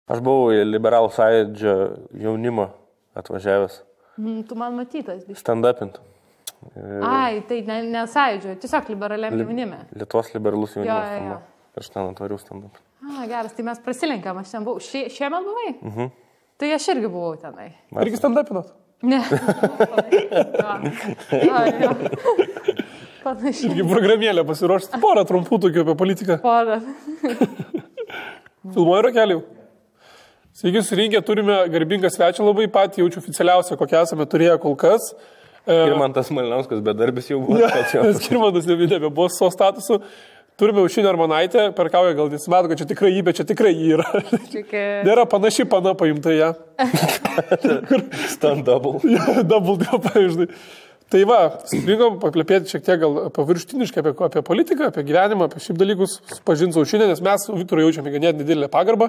Aš buvau į Liberalų sąjūdžio jaunimo atvažiavęs. Tu man matytas. Stand-upint. Ai, tai ne sąjūdžio, tiesiog liberaliam jaunime. Lietuvos liberalus jaunimas. Jo. Aš ten atvariau stand-up. Geras, tai mes prasilenkėm, aš ten buvau. Šiemet buvai? Tai aš irgi buvau tenai. Irgi stand-upinot? Ne. Jo. Panašiai. Irgi programėlę pasiruošti. Porą trumpų tokių apie politiką. Porą. Filmuoju Rakeliu. Sveiki, surinkę, turime garbingą svečią labai patį, jaučiu oficialiausią, kokią esame turėję kol kas. Skirmantas Malinauskas bedarbis jau buvo. Skirmantas nebebuvo savo statusu. Turime Aušrinę Armonaitę, perkauja gal nesimato, kad čia tikrai jį, bet čia tikrai jį yra. Nėra panaši pana paimta ją. Stand double. Double, pavyzdžiui. Tai va, surinkom paplepėti šiek tiek gal paviršutiniškai apie politiką, apie gyvenimą, apie šiaip dalykus, pažinti su Aušrinę, nes mes Viktorui jaučiame ganėtinai didelę pagarbą.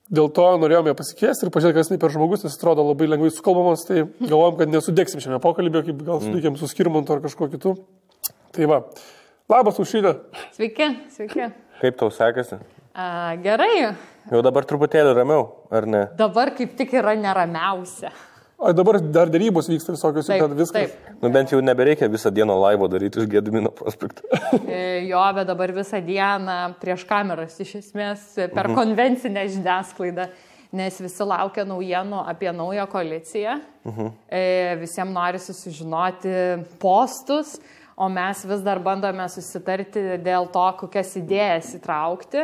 Dėl to norėjome pasikviesti ir pažiūrėti, kas per žmogus, nes atrodo labai lengvai sukalbamas, tai galvojom, kad nesudėksim šiame pokalbėje, kaip gal sudėkėm su Skirmantu ar kažkuo kitu. Tai va. Labas, Aušrinė. Sveiki. Kaip tau sekasi? Gerai. Jau dabar truputėlį ramiau, ar ne? Dabar kaip tik yra neramiausia. O dabar dar darybos vyksta visokios, taip, viskas. Taip. Nu bent jau nebereikia visą dieną laivo daryti iš Gedimino prospekto. Jo, bet dabar visą dieną prieš kameras, iš esmės, per konvencinę žiniasklaidą, nes visi laukia naujienų apie naują koaliciją. Visiems norisi sužinoti postus, o mes vis dar bandome susitarti dėl to, kokias idėjas įtraukti.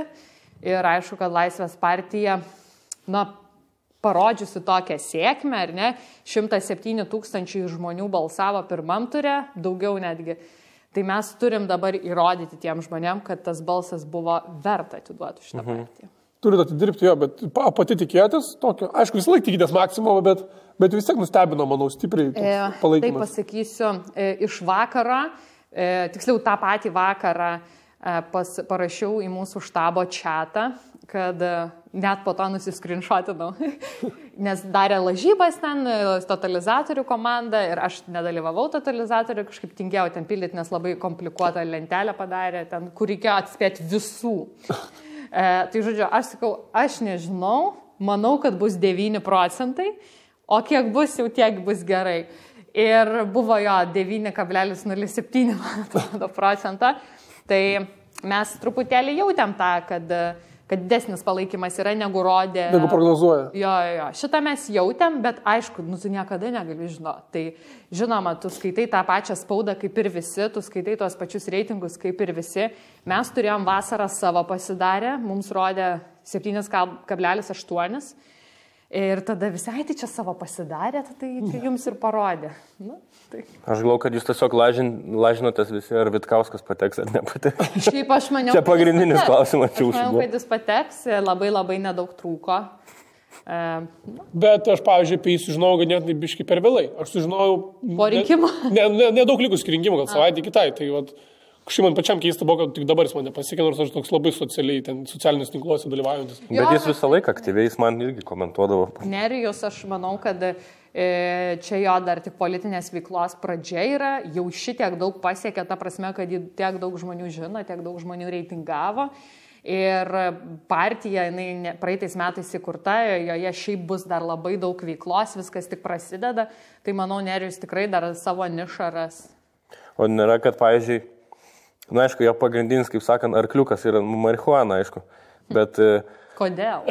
Ir aišku, kad Laisvės partija, parodžiusi tokią sėkmę, ar ne, 107 000 žmonių balsavo pirmam ture, daugiau netgi. Tai mes turim dabar įrodyti tiem žmonėm, kad tas balsas buvo verta atiduoti šitą partiją. Turite atidirbti jo, bet pati tikėjotės tokio, aišku, visą laiką tikitės maksimumą, bet vis tiek nustebino, manau, stipriai palaikymas. Tai pasakysiu, iš vakaro, tiksliau tą patį vakarą parašiau į mūsų štabo chatą, kad net po to nusiskrinšotinau, nes darė lažybas ten, totalizatorių komanda ir aš nedalyvavau totalizatorių, kažkaip tingėjau ten pildyti, nes labai komplikuotą lentelę padarė, ten, kur reikėjo atspėti visų. Tai žodžiu, aš sakau, aš nežinau, manau, kad bus 9%, o kiek bus, jau tiek bus gerai. Ir buvo jo 9,07 procento. Tai mes truputėlį jautėm tą, kad didesnis palaikymas yra negu rodė. Negu prognozuoja. Jo. Šitą mes jautėm, bet aišku, tu niekada negali žinoti. Tai žinoma, tu skaitai tą pačią spaudą kaip ir visi, tu skaitai tuos pačius reitingus kaip ir visi. Mes turėjom vasarą savo pasidarę, mums rodė 7,8. Ir tada visai tai čia savo pasidarė, tai jums ir parodė. Tai. Aš galvoju, kad jūs tiesiog lažinotės visi, ar Vitkauskas pateks ar nepateks. Šiaip aš maniau, čia pagrindinis klausimas. Aš maniau, kad jis pateks, labai nedaug trūko. Bet aš, pavyzdžiui, apie jį sužinojau ganėtinai biškai per vėlai. Aš sužinojau... Po rinkimų? Nedaug likus iki rinkimų, gal savaitę kitai. Tai kažkaip man pačiam keista buvo, kad tik dabar jis mane pasiekė, nors aš toks labai socialinius tinkluose dalyvaujantis. Bet jis visą laiką aktyviai, jis man irgi komentuodavo. Nerijus, aš manau, kad čia jo dar tik politinės veiklos pradžia yra, jau šitiek daug pasiekė, ta prasme, kad jį tiek daug žmonių žino, tiek daug žmonių reitingavo. Ir partija, jinai praeitais metais įkurta, joje šiaip bus dar labai daug veiklos, viskas tik prasideda. Tai manau, Nerijus tikrai dar savo nišą ras. O nėra, kad, pavyzdžiui, aišku, jo pagrindinis, kaip sakant, arkliukas yra marihuana, aišku, bet... Kodėl?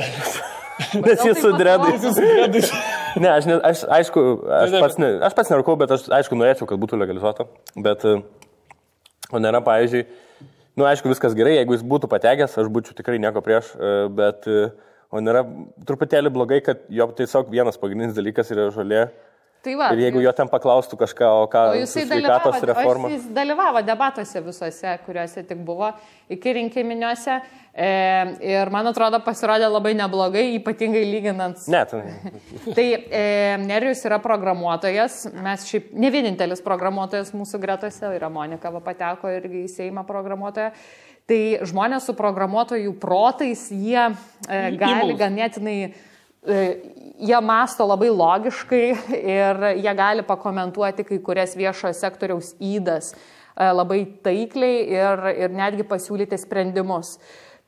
Nes jis su dredais. Ne, aš pats nerūkau, bet aš, aišku, norėčiau, kad būtų legalizuota, bet, o nėra, pavyzdžiui, aišku, viskas gerai, jeigu jis būtų patekęs, aš būčiau tikrai nieko prieš, bet, o nėra truputėlį blogai, kad jo tiesiog vienas pagrindinis dalykas yra žolė. Tai va, ir jeigu jo ten paklaustų kažką, o ką su sveikatos reforma. Jis dalyvavo debatuose visuose, kuriuose tik buvo, iki rinkiminiuose. Ir man atrodo, pasirodė labai neblogai, ypatingai lyginant. Net. Tai Nerijus yra programuotojas, mes šiaip ne vienintelis programuotojas mūsų gretose, yra Monika pateko irgi į Seimą programuotoją. Tai žmonės su programuotojų protais, jie gali ganėtinai... Jie masto labai logiškai ir jie gali pakomentuoti kai kurias viešojo sektoriaus ydas labai taikliai ir netgi pasiūlyti sprendimus.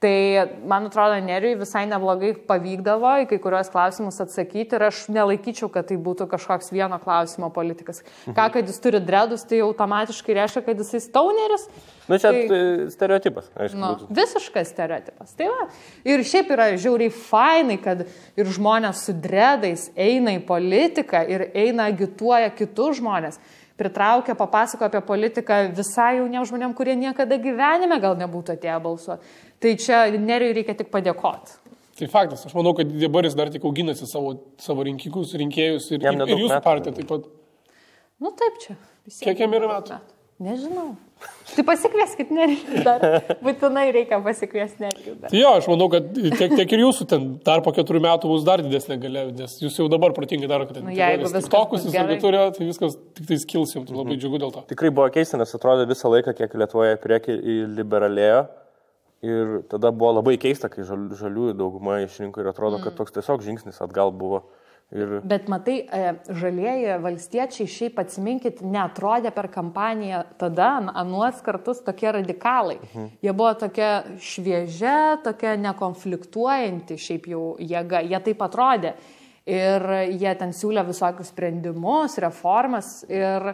Tai, man atrodo, Nerijui visai neblogai pavykdavo į kai kurios klausimus atsakyti ir aš nelaikyčiau, kad tai būtų kažkoks vieno klausimo politikas. Ką, kad jis turi dredus, tai automatiškai reiškia, kad jis stauneris. Na, čia stereotipas, aišku. Visiškas stereotipas. Tai va. Ir šiaip yra žiauriai fainai, kad ir žmonės su dredais eina į politiką ir eina agituoja kitus žmonės. Pritraukia, papasakoja apie politiką visai jauniems žmonėms, kurie niekada gyvenime gal nebūtų atėję balsuoti. Tai čia Nerijui reikia tik padėkoti. Tai faktas, aš manau, kad dabar jis dar tik auginasi savo rinkėjus ir jūsų partiją taip pat. Nu taip čia. Kiek jam yra metų? Nežinau. Tai pasikvieskit Nerijų dar. Būtinai reikia pasikviesti Nerijų dar. Tai jo, aš manau, kad tiek ir jūsų ten dar po 4 metų bus dar didesnė galia, nes jūs jau dabar protingai darote. Jeigu viskas tokus jūs turėjo, tai viskas tik tai skils jums, labai džiugu dėl to. Tikrai buvo keista, nes atrodo visą laiką, kiek Lietuvoje priekį liberalėjo. Ir tada buvo labai keista, kai žaliųjų dauguma išrinko ir atrodo, kad toks tiesiog žingsnis atgal buvo. Bet matai, žalieji valstiečiai šiaip atsiminkit, neatrodė per kampaniją tada, anuos kartus tokie radikalai. Jie buvo tokia šviežia, tokia nekonfliktuojanti šiaip jau jėga, jie taip atrodė. Ir jie ten siūlė visokius sprendimus, reformas ir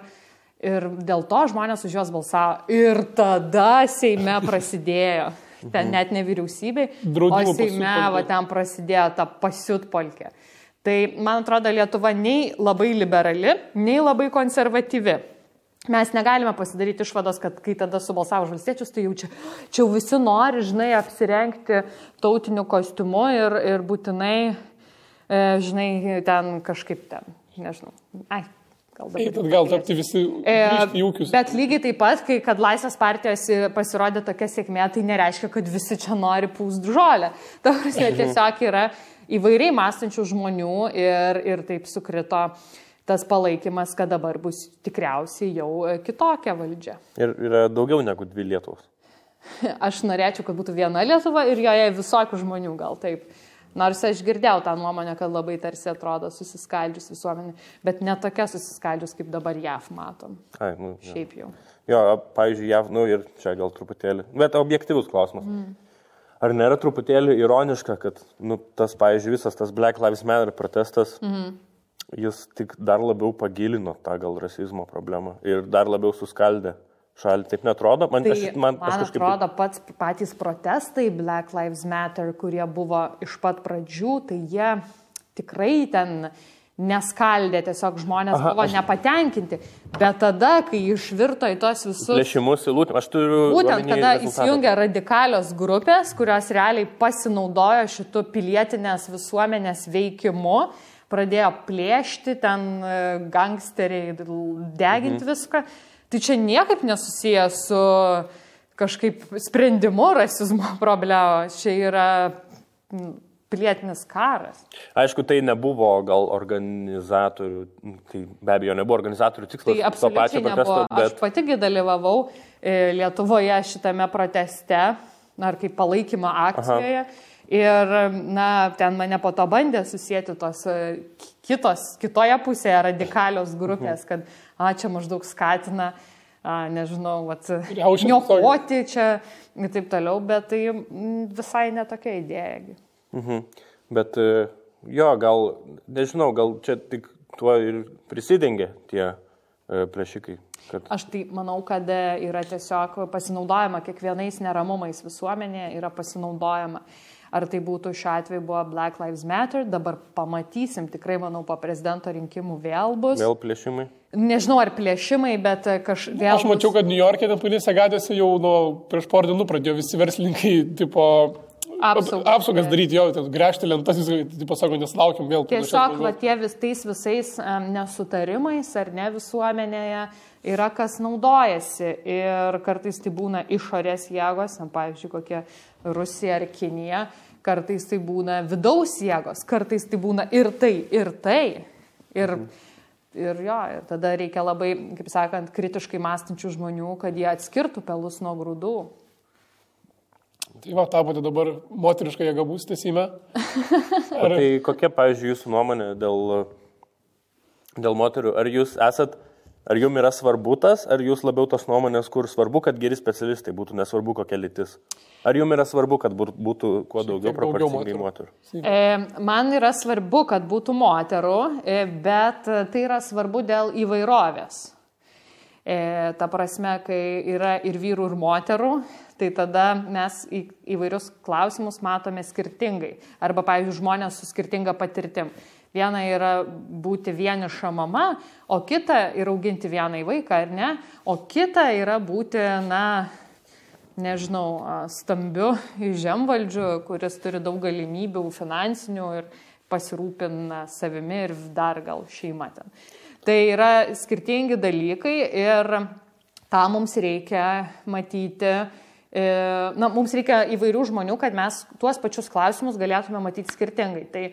dėl to žmonės už juos balsavo. Ir tada Seime prasidėjo. Ten net ne vyriausybei, o Seime va, ten prasidėjo ta pasiutpolkė. Tai, man atrodo, Lietuva nei labai liberali, nei labai konservatyvi. Mes negalime pasidaryti išvados, kad kai tada subalsavo už valstiečius, tai jau čia visi nori, žinai, apsirengti tautiniu kostiumu ir būtinai, žinai, ten kažkaip ten, nežinau. Gal tapti visi į ūkius. Bet lygiai taip pat, kai kad Laisvės partijos pasirodė tokia sėkmė, tai nereiškia, kad visi čia nori pūst žolę. Ta prasme, tiesiog yra įvairiai mąstančių žmonių ir taip sukrito tas palaikymas, kad dabar bus tikriausiai jau kitokia valdžia. Ir yra daugiau negu 2 Lietuvos. Aš norėčiau, kad būtų viena Lietuva ir joje visokių žmonių gal taip. Nors aš girdėjau tą nuomonę, kad labai tarsi atrodo susiskaldžius visuomenė, bet ne tokia susiskaldžius, kaip dabar JAV matom. Šiaip jau. Jo, pavyzdžiui, JAV, ir čia gal truputėlį, bet objektyvus klausimas. Ar nėra truputėlį ironiška, kad tas, pavyzdžiui, visas tas Black Lives Matter protestas, jis tik dar labiau pagilino tą gal rasizmo problemą ir dar labiau suskaldė šalį, taip netrodo? Man atrodo, patys protestai Black Lives Matter, kurie buvo iš pat pradžių, tai jie tikrai ten neskaldė, tiesiog žmonės buvo nepatenkinti. Bet tada, kai išvirto į tos visus... Plėšimus, aš turiu... Būtent, kada įsijungia radikalios grupės, kurios realiai pasinaudojo šitų pilietinės visuomenės veikimu, pradėjo plėšti, ten gangsteriai deginti viską. Tai čia niekaip nesusiję su kažkaip sprendimu rasizmo problemos. Čia yra pilietinis karas. Aišku, tai nebuvo gal organizatorių, tai be abejo nebuvo organizatorių tikslas. Tai absoliučiai nebuvo. Bet... Aš patigi dalyvavau Lietuvoje šitame proteste, ar kaip palaikymo akcijoje. Ir, ten mane po to bandė susijęti tos kitoje pusėje radikalios grupės, kad čia maždaug skatina, nežinau, niokoti čia ir taip toliau, bet tai visai netokia idėja. Bet jo, gal, nežinau, gal čia tik tuo ir prisidengia tie plėšikai. Aš tai manau, kad yra tiesiog pasinaudojama kiekvienais neramumais visuomenėje, yra pasinaudojama. Ar tai būtų šiuo atveju buvo Black Lives Matter, dabar pamatysim, tikrai manau, po prezidento rinkimų vėl bus. Vėl plėšimai? Nežinau, ar plėšimai, bet vėl... Aš mačiau, kad New York'e policija gadėsi jau prieš porą dienų pradėjo visi verslininkai, tipo, apsaugas daryti, jau gręžti lentas, tipo, sako, neslaukiam vėl. Tiesiog, tais visais nesutarimais ar ne visuomenėje yra kas naudojasi ir kartais tai būna išorės jėgos, pavyzdžiui, kokie Rusija ar Kinija, kartais tai būna vidaus jėgos, kartais tai būna ir tai, ir tai. Ir tada reikia labai, kaip sakant, kritiškai mąstančių žmonių, kad jie atskirtų pelus nuo grūdų. Tai tapote dabar moterišką jėgą būsite Seime? Tai kokia, pavyzdžiui, jūsų nuomonė dėl moterių? Ar jūs esat Ar jums yra svarbu tas, ar jūs labiau tos nuomonės, kur svarbu, kad geri specialistai būtų, nesvarbu kokia lytis? Ar jums yra svarbu, kad būtų kuo daugiau proporcingai moterų? Man yra svarbu, kad būtų moterų, bet tai yra svarbu dėl įvairovės. Ta prasme, kai yra ir vyrų, ir moterų, tai tada mes įvairius klausimus matome skirtingai. Arba, pavyzdžiui, žmonės su skirtinga patirtim. Viena yra būti vieniša mama, o kita yra auginti vieną vaiką, ar ne? O kita yra būti, stambiu žemvaldžiu, kuris turi daug galimybių finansinių ir pasirūpina savimi ir dar gal šeima ten. Tai yra skirtingi dalykai ir tą mums reikia matyti. Mums reikia įvairių žmonių, kad mes tuos pačius klausimus galėtume matyti skirtingai. Tai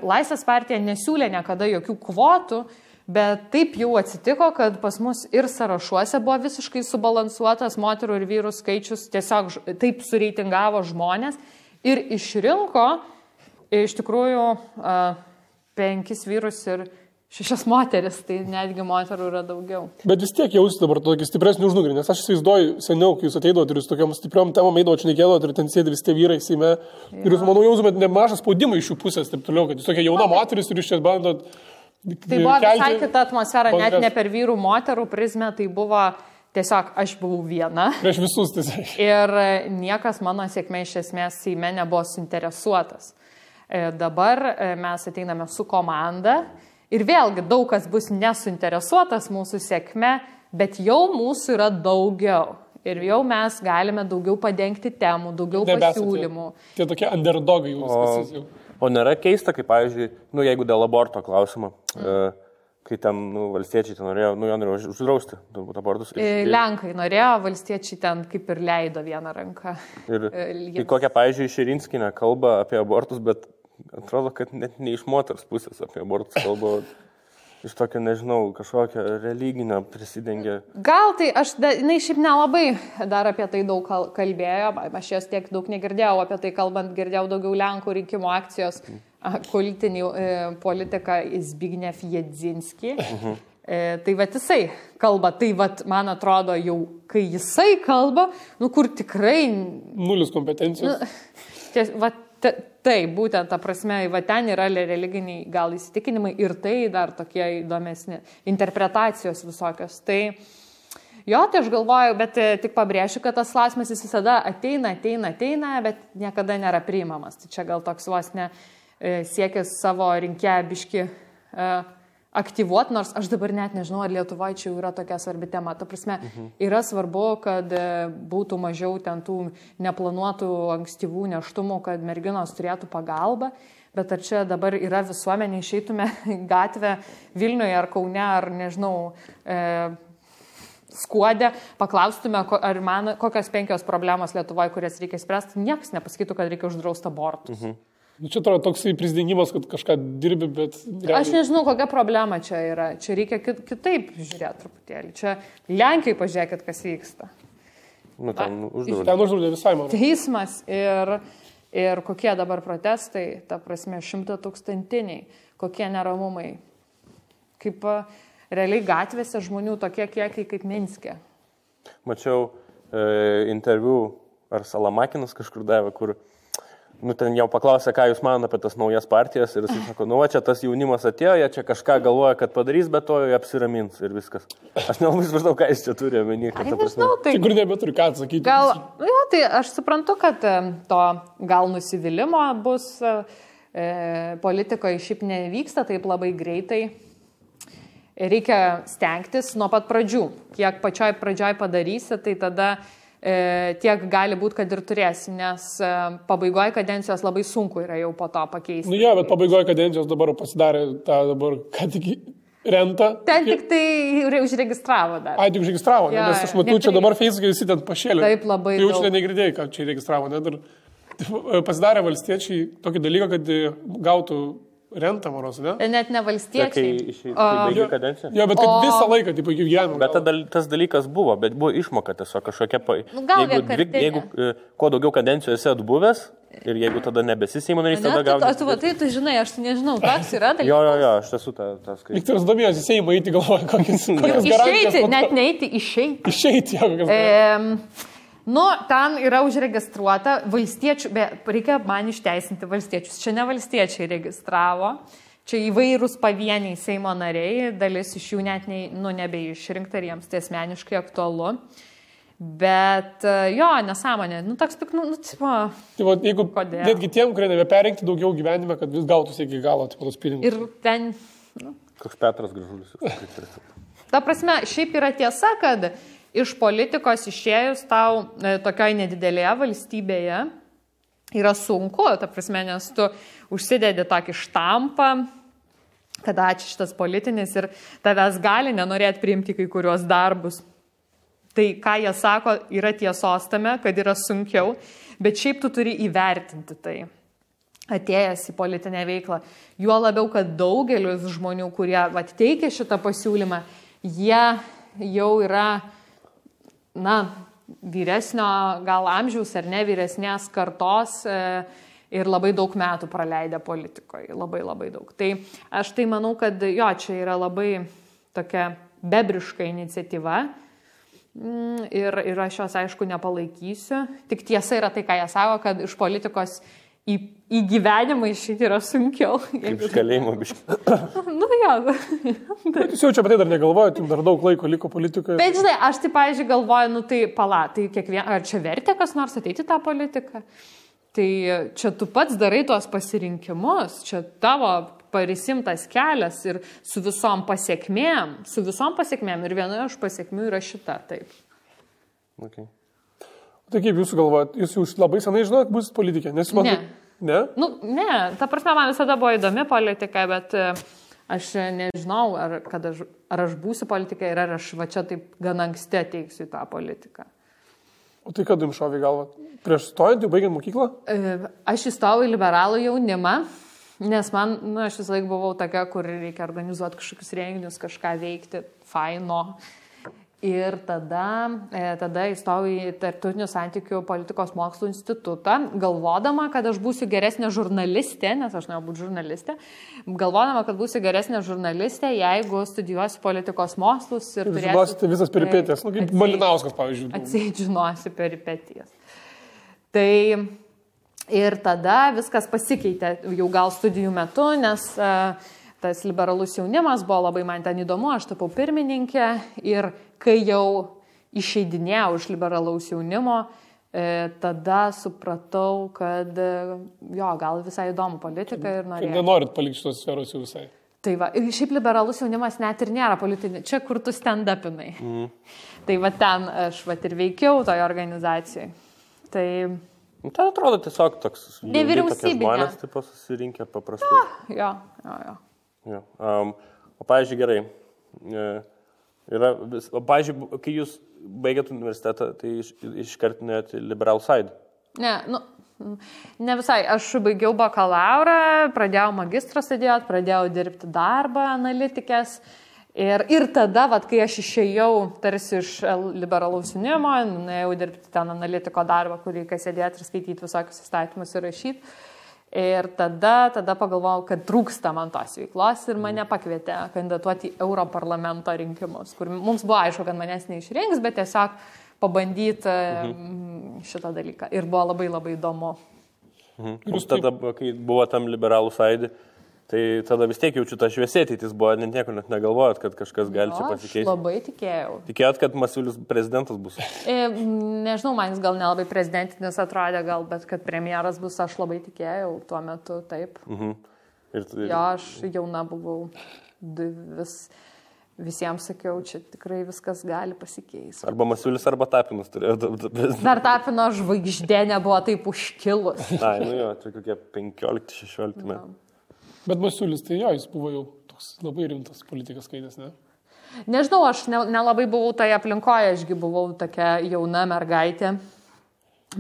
Laisvės partija nesiūlė niekada jokių kvotų, bet taip jau atsitiko, kad pas mus ir sąrašuose buvo visiškai subalansuotas moterų ir vyrų skaičius, tiesiog taip sureitingavo žmonės ir išrinko iš tikrųjų 5 vyrus ir 6 moteris, tai netgi moterų yra daugiau. Bet vis tiek jausi dabar tokį stipresnį užnugarį, nes aš įsivaizduoju seniau, kai jūs ateidavote ir jūs tokiam stipriom temom eidavote, šnekėdavote ir ten sėdi visi tie vyrai Seime. Ir jūs, manau, jausumėt nemažą spaudimą iš jų pusės, taip toliau, kad jūs tokia jauna moteris ir jūs čia bandot. Tai buvo visai kita atmosfera, net ne per vyrų moterų prizmę, tai buvo tiesiog aš buvau viena. Prieš visus tiesiog. Ir niekas mano sėkmė iš esmės Seime nebuvo suinteresuotas. Dabar mes ateiname su komanda. Ir vėlgi daug kas bus nesuinteresuotas mūsų sėkme, bet jau mūsų yra daugiau. Ir jau mes galime daugiau padengti temų, daugiau pasiūlymų. Tie tokie underdogai jūs. O nėra keista, kaip, pavyzdžiui, jeigu dėl aborto klausimo, kai ten valstiečiai ten norėjo, jo norėjo uždrausti abortus. Lenkai norėjo, valstiečiai ten kaip ir leido vieną ranką. Ir kokią, pavyzdžiui, Širinskienė kalba apie abortus, bet atrodo, kad net ne iš moters pusės apie abortus kalba, iš tokio, nežinau, kažkokio religinio prisidengia. Gal tai, jinai šiaip nelabai dar apie tai daug kalbėjo, aš jos tiek daug negirdėjau, apie tai kalbant girdėjau daugiau Lenkų rinkimų akcijos politinį politiką Zbigniew Jedzinski. Tai vat jisai kalba, tai vat man atrodo jau, kai jisai kalba, kur tikrai... Nulis kompetencijos. Taip, būtent, ta prasme, va ten yra religiniai gal įsitikinimai ir tai dar tokie įdomesni interpretacijos visokios. Tai tai aš galvoju, bet tik pabrėšiu, kad tas klausimas jis visada ateina, bet niekada nėra priimamas. Tai čia gal toks vos ne siekis savo rinkėją biški aktyvuoti, nors aš dabar net nežinau, ar Lietuvoje čia yra tokia svarbi tema. Ta prasme, yra svarbu, kad būtų mažiau ten tų neplanuotų ankstyvų nėštumų, kad merginos turėtų pagalbą, bet ar čia dabar yra visuomenė, išeitume gatvę Vilniuje ar Kaune, ar nežinau, Skuode, paklaustume, kokios 5 problemos Lietuvoje, kurias reikia spręsti, niekas nepasakytų, kad reikia uždrausti abortus. Čia atrodo toksai prisdengimas, kad kažką dirbi, bet... Aš nežinau, kokia problema čia yra. Čia reikia kitaip žiūrėti truputėlį. Čia Lenkiai pažiūrėkit, kas vyksta. Ten uždraudė visai, man. Teismas ir kokie dabar protestai, ta prasme, 100-tūkstantiniai, kokie neramumai. Kaip realiai gatvėse žmonių tokie kiekiai kaip Minske. Mačiau interviu, ar Salamakinas kažkur davė, kur ten jau paklausė, ką jūs manote apie tas naujas partijas ir jis sako, čia tas jaunimas atėjo, jie čia kažką galvoja, kad padarys, bet to jie apsiramins ir viskas. Aš nelabai supratau, ką jis čia turi omeny. Tai kur nebeturi ką atsakyti. Tai aš suprantu, kad to gal nusivylimo bus, politikoje šiaip nevyksta taip labai greitai. Reikia stengtis nuo pat pradžių. Kiek pačioj pradžioj padarysi, tai tada tiek gali būti, kad ir turėsi, nes pabaigoje kadencijos labai sunku yra jau po to pakeisti. Bet pabaigoje kadencijos dabar pasidarė tą dabar, ką tik rentą. Ten tik tai užregistravo dar. Tik užregistravo, nes aš matau, čia dabar Facebook'e visi ten pašėlė. Taip, labai daug. Jau čia negirdėjai, ką čia registravo. Pasidarė valstiečiai tokį dalyką, kad gautų rentą, maros, ne? Net ne valstiečiai. Kai baigė kadenciją? Bet kad visą laiką, taip, gyvenimo. Bet tas dalykas buvo, bet buvo išmoka tiesiog kažkokia... Jeigu kuo daugiau kadencijų esi atbuvęs, Ir jeigu tada nebesi Seimo narys, tada gauni. Tai žinai, aš nežinau, toks yra dalykas. Jo, aš esu tas kaip. Viktoras domėjosi Seimo eiti galvoja, kokias garantijas. Išeiti, net neiti, išeiti. Išeiti, jo, kokias garantijas. Ten yra užregistruota valstiečių, reikia man išteisinti valstiečius. Čia ne valstiečiai registravo, čia įvairūs pavieniai Seimo nariai, dalis iš jų net nebeišrinkta ir jiems tai asmeniškai aktualu. Bet jo, nesąmonė, toks tik, tipo... Tai jeigu netgi tiem, kurie nebeperinkti daugiau gyvenime, kad vis gautųsi iki galo, tipo, tos pinigus. Ir ten... Koks Petras Gražulis. Ta prasme, šiaip yra tiesa, kad iš politikos išėjus tau tokioj nedidelėje valstybėje yra sunku, ta prasme, nes tu užsidedi tokį štampą, kad ačiū šitas politinis ir tavęs gali nenorėti priimti kai kurios darbus. Tai, ką jie sako, yra tiesos tame, kad yra sunkiau, bet šiaip tu turi įvertinti tai, atėjęs į politinę veiklą. Juo labiau, kad daugelis žmonių, kurie teikia šitą pasiūlymą, jie jau yra, vyresnio gal amžiaus ar ne vyresnės kartos ir labai daug metų praleidę politikoje, labai labai daug. Tai aš tai manau, kad jo, čia yra labai tokia bebriška iniciatyva. Ir aš jos, aišku, nepalaikysiu. Tik tiesa yra tai, ką jie sako, kad iš politikos į gyvenimą išeiti yra sunkiau. Kaip iš kalėjimo biškai. Jo. Bet jūs jau čia apie tai dar negalvojate, jums dar daug laiko liko politikoje. Bet žinai, aš tai, pavyzdžiui, galvoju, tai ar čia vertė kas nors ateiti tą politiką? Tai čia tu pats darai tuos pasirinkimus, čia tavo parisimtas kelias ir su visom pasiekmėm ir vienoje iš pasiekmių yra šita, taip. Okay. Tai kaip jūs galvojat, jūs labai senai žinot, bus politikė? Ne. Ne? Ne, ta prasme, man visada buvo įdomi politika, bet aš nežinau, ar aš būsiu politikė ir ar aš va čia taip gan anksti ateiksiu į tą politiką. O tai kad jums šovė galva? Prieš stojant, jau baigiant mokyklą? Aš įstojau į liberalų jaunimą, nes man, aš visą laiką buvau tokia, kur reikia organizuoti kažkokius renginius, kažką veikti, faino. Ir tada įstojau į Tarptautinių santykių politikos mokslų institutą, galvodama, kad aš būsiu geresnė žurnalistė, nes aš norėjau būti žurnalistė, galvodama, kad būsiu geresnė žurnalistė, jeigu studijuosiu politikos mokslus ir turėsiu... Žinosite visas peripetijas, kaip Malinauskas, pavyzdžiui. Atseit žinosiu peripetijas. Tai ir tada viskas pasikeitė jau gal studijų metu, nes tas liberalus jaunimas buvo labai man ten įdomu, aš tapau pirmininkė ir kai jau išeidinėjau iš liberalaus jaunimo, tada supratau, kad jo, gal visai įdomu politika ir norėjau. Kad nenorit palikti šitos sferos jau visai. Tai va, ir šiaip liberalus jaunimas net ir nėra politinė, čia kur tu stand-upinai. Tai va ten aš va ir veikiau toje organizacijoje. Tai... Tai atrodo tiesiog toks... Nevyriausybinė. Žmonės taip susirinkę paprastai. Jo. O pavyzdžiui, gerai. Pavyzdžiui, kai jūs baigėt universitetą, tai iškart nuėjot į Liberal Side? Ne visai. Aš baigiau bakalaurą, pradėjau magistrą studijuoti, pradėjau dirbti darbą analitikės. Ir tada, kai aš išėjau tarsi iš liberalaus jaunimo, nuėjau dirbti ten analitiko darbą, kur reikia sėdėti ir skaityti visokius įstatymus ir rašyti. Ir tada pagalvojau, kad trūksta man tos veiklos ir mane pakvietė kandidatuoti į Europarlamento rinkimus, kur mums buvo aišku, kad manęs neišrinks, bet tiesiog pabandyti šitą dalyką. Ir buvo labai labai įdomu. Jūs tada, kai buvo tam liberalų sąjūdį, tai tada vis tiek jaučiu tą šviesę ateitis buvo, nieko net negalvojot, kad kažkas gali čia pasikeisti. Aš labai tikėjau. Tikėjot, kad Masiulis prezidentas bus? Nežinau, man jis gal nelabai prezidentinis atrodė, bet kad premjeras bus, aš labai tikėjau tuo metu, taip. Jo, aš jauna buvau, visiems sakiau, čia tikrai viskas gali pasikeisti. Arba Masiulis, arba Tapinas turėjo. Dar Tapino žvaigždė nebuvo taip užkilus. Ai, jo, tai kokie 15-16 metų. Bet Masiulis, tai jo, jis buvo jau toks labai rimtas politikas skaitęs, ne? Nežinau, aš nelabai buvau toje aplinkoje, ašgi buvau tokia jauna mergaitė.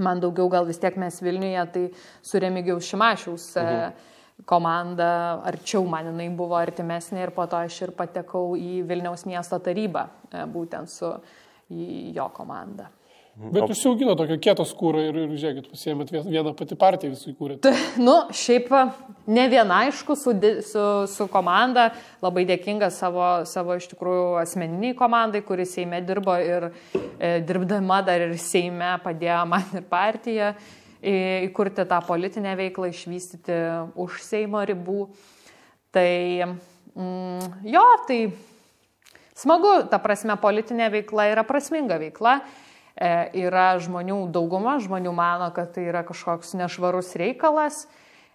Man daugiau gal vis tiek mes Vilniuje, tai su Remigijaus Šimašiaus komanda, arčiau man jinai buvo artimesnė ir po to aš ir patekau į Vilniaus miesto tarybą, būtent su jo komanda. Bet užsiaugino tokio kieto skūro ir žiūrėkit, pasiėmėt vieną pati partiją visų įkūrėt. Šiaip ne viena, aišku, su komanda, labai dėkinga savo iš tikrųjų asmeniniai komandai, kuris Seime dirbo ir dirbdama dar ir Seime padėjo man ir partiją įkurti tą politinę veiklą, išvystyti už Seimo ribų. Tai tai smagu, ta prasme, politinė veikla yra prasminga veikla. Yra žmonių dauguma, žmonių mano, kad tai yra kažkoks nešvarus reikalas.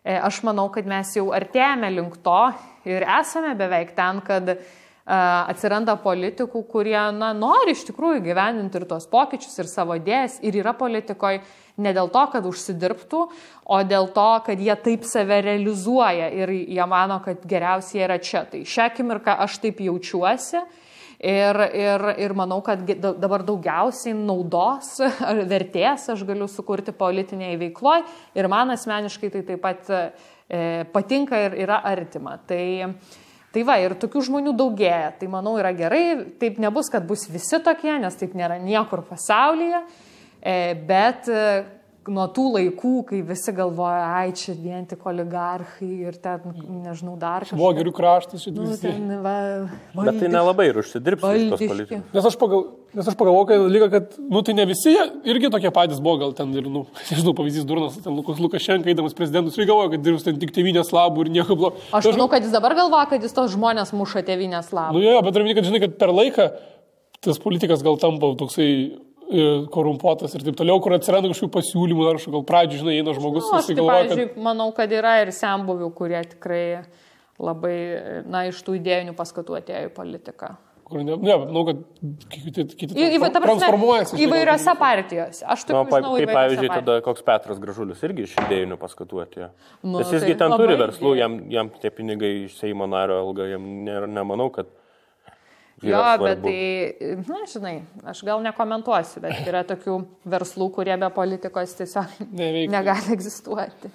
Aš manau, kad mes jau artėjame link to ir esame beveik ten, kad atsiranda politikų, kurie nori iš tikrųjų gyveninti ir tos pokyčius, ir savo idėjas, ir yra politikoje ne dėl to, kad užsidirbtų, o dėl to, kad jie taip save realizuoja ir jie mano, kad geriausiai yra čia. Tai šią akimirką aš taip jaučiuosi. Ir manau, kad dabar daugiausiai naudos ar vertės aš galiu sukurti politinėje veikloje ir man asmeniškai tai taip pat patinka ir yra artima. Tai va, ir tokių žmonių daugėja. Tai manau yra gerai, taip nebus, kad bus visi tokie, nes taip nėra niekur pasaulyje, bet nuo tų laikų, kai visi galvoja, čia vien tik oligarchai ir ten, nežinau, dar kažkas. Švogerių kraštas šitą visi. Bet tai nelabai ir užsidirbs tos politikos. Nes aš pagalvoju, kad tai ne visi irgi tokie patys buvo, gal ten ir, nežinau, pavyzdys durnas, ten Lukašenka, eidamas prezidentus, ir galvoja, kad dirbs ten tik tėvynės labų ir nieko blogo. Aš manau, kad jis dabar galvoja, kad jis tos žmonės muša tėvynės labų. Bet turiu, kad žinai, kad per laiką tas politikas gal tampa toksai korumpuotas ir taip toliau, kur atsiranda kažkokių pasiūlymų, ar gal pradžių, žinai, eina žmogus, pavyzdžiui, manau, kad yra ir senbuvių, kurie tikrai labai, iš tų idėjinių paskatų atėjo į politiką. Manau, kad kiti transformuojasi. Įvairiose partijose. Aš taip žinau, kaip pavyzdžiui, tada koks Petras Gražulis irgi iš idėjinių paskatų atėjo. Nes jisgi ten turi verslų, jam tie pinigai iš Seimo nario alga, jam nemanau, kad bet tai, žinai, aš gal nekomentuosiu, bet yra tokių verslų, kurie be politikos tiesiog negali egzistuoti.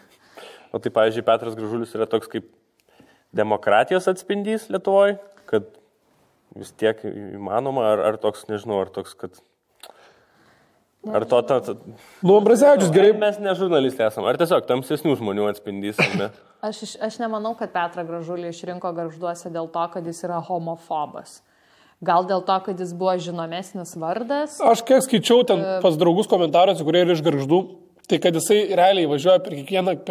O tai, pavyzdžiui, Petras Gražulis yra toks kaip demokratijos atspindys Lietuvoje, kad vis tiek įmanoma, ar toks, nežinau, ar toks, kad... Ar to... Ambrazevičius gerai. Mes ne žurnalistai esame, ar tiesiog tamsesnių žmonių atspindys. Aš nemanau, kad Petrą Gražulį išrinko Gargžduose dėl to, kad jis yra homofobas. Gal dėl to, kad jis buvo žinomesnis vardas. Aš kiek skaičiau ten pas draugus komentaruose, kurie yra iš Gargždų, tai kad jisai realiai važiuoja per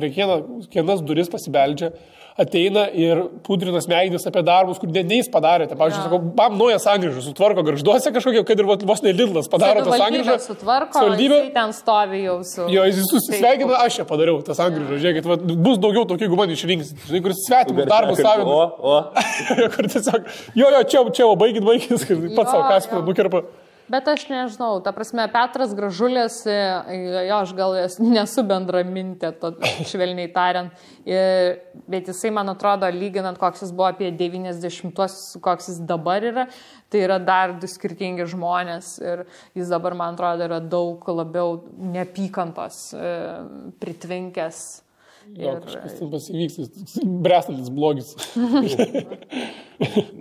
kiekvienas duris pasibeldžia, ateina ir pudrinas smegenis apie darbus, kur jis padarė. Tai, pavyzdžiui, sakau, naują sankryžą sutvarko Gargžduose kažkokia, kad ir vos ne Lidlas padaro tą sankryžą. Savivaldybė jisai ten stovi jau su... Jo, jis susisveikina, aš čia padariau tą sankryžą. Žiūrėkit, bus daugiau tokių, jeigu man išrinks. Žinai, kur svetimus darbus savina. Kur tiesiog, čia, baigit, pats savo kaspį nukirpa. Bet aš nežinau, ta prasme, Petras Gražulis, aš gal nesu bendramintė, švelniai tariant, bet jisai, man atrodo, lyginant, koks jis buvo apie 90-uosius, koks jis dabar yra, tai yra dar du skirtingi žmonės ir jis dabar, man atrodo, yra daug labiau neapykantos pritvinkęs. Kažkas ten pasivyks, brestantis blogis.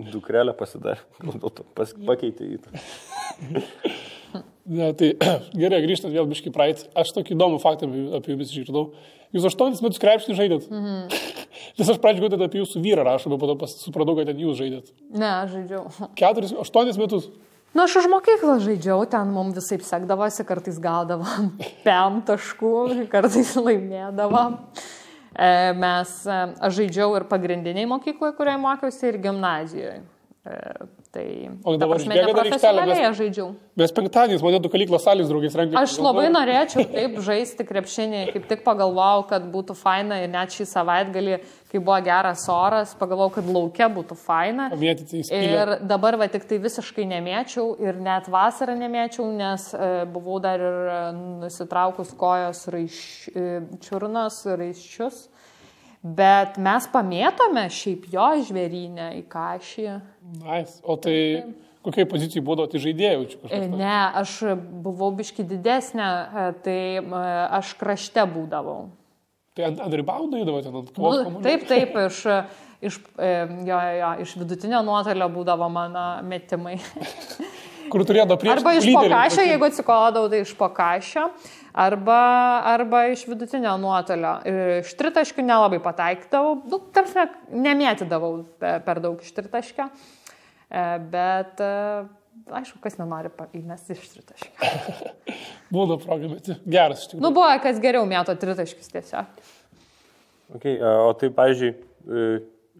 Dukrelę pasidarė, gal dėl to pakeitė į tą. Tai gerai, grįžtant vėl biškai praeit. Aš tokį įdomų faktą apie jumis išgirdau. Jūs 8 metus krepšinį žaidėt. Nes aš pradžiu galbūt apie jūsų vyrą rašau, bet po to supratau, kad ten jūs žaidėt. Ne, aš žaidžiau. 8 metus. Aš už mokyklą žaidžiau, ten mums visai sekdavosi, kartais gaudavom 5 taškų, kartais laimėdavom. Aš žaidžiau ir pagrindiniai mokykloje, kurioje mokiausi, ir gimnazijoje. O dabar išbėga dar aikštelę, žaidžiau. Mes penktadieniais mane du kalyklos salės draugais rengė. Aš labai norėčiau taip žaisti krepšinį, kaip tik pagalvojau, kad būtų faina ir net šį savaitgalį, kai buvo geras oras, pagalvojau, kad lauke būtų faina. Ir dabar tik tai visiškai nemėčiau ir net vasarą nemėčiau, nes buvau dar ir nusitraukus kojos čiurnos raiščius. Bet mes pamėtome šiaip jo žvėrynę į Kašį. Nice. O tai kokiai pozicijai būdavo, tai žaidėjau? Ne, aš buvau biški didesnė, tai aš krašte būdavau. Tai ant ribaundo įdavo ten ant kovos kamuolio? Taip, iš vidutinio nuotolio būdavo mano metimai. kur turėjo prieš. Arba iš pokašio, jeigu atsikodavau, tai iš pokašio, arba iš vidutinio nuotolio. Iš tritaškių nelabai pataikdavau, tarsi nemėtydavau per daug iš tritaškio, bet aišku, kas nenori įmesti iš tritaškio. Būna proga, bet geras iš tikrųjų. Buvo, kas geriau mėto tritaškius tiesiog. Okay, o tai, pavyzdžiui,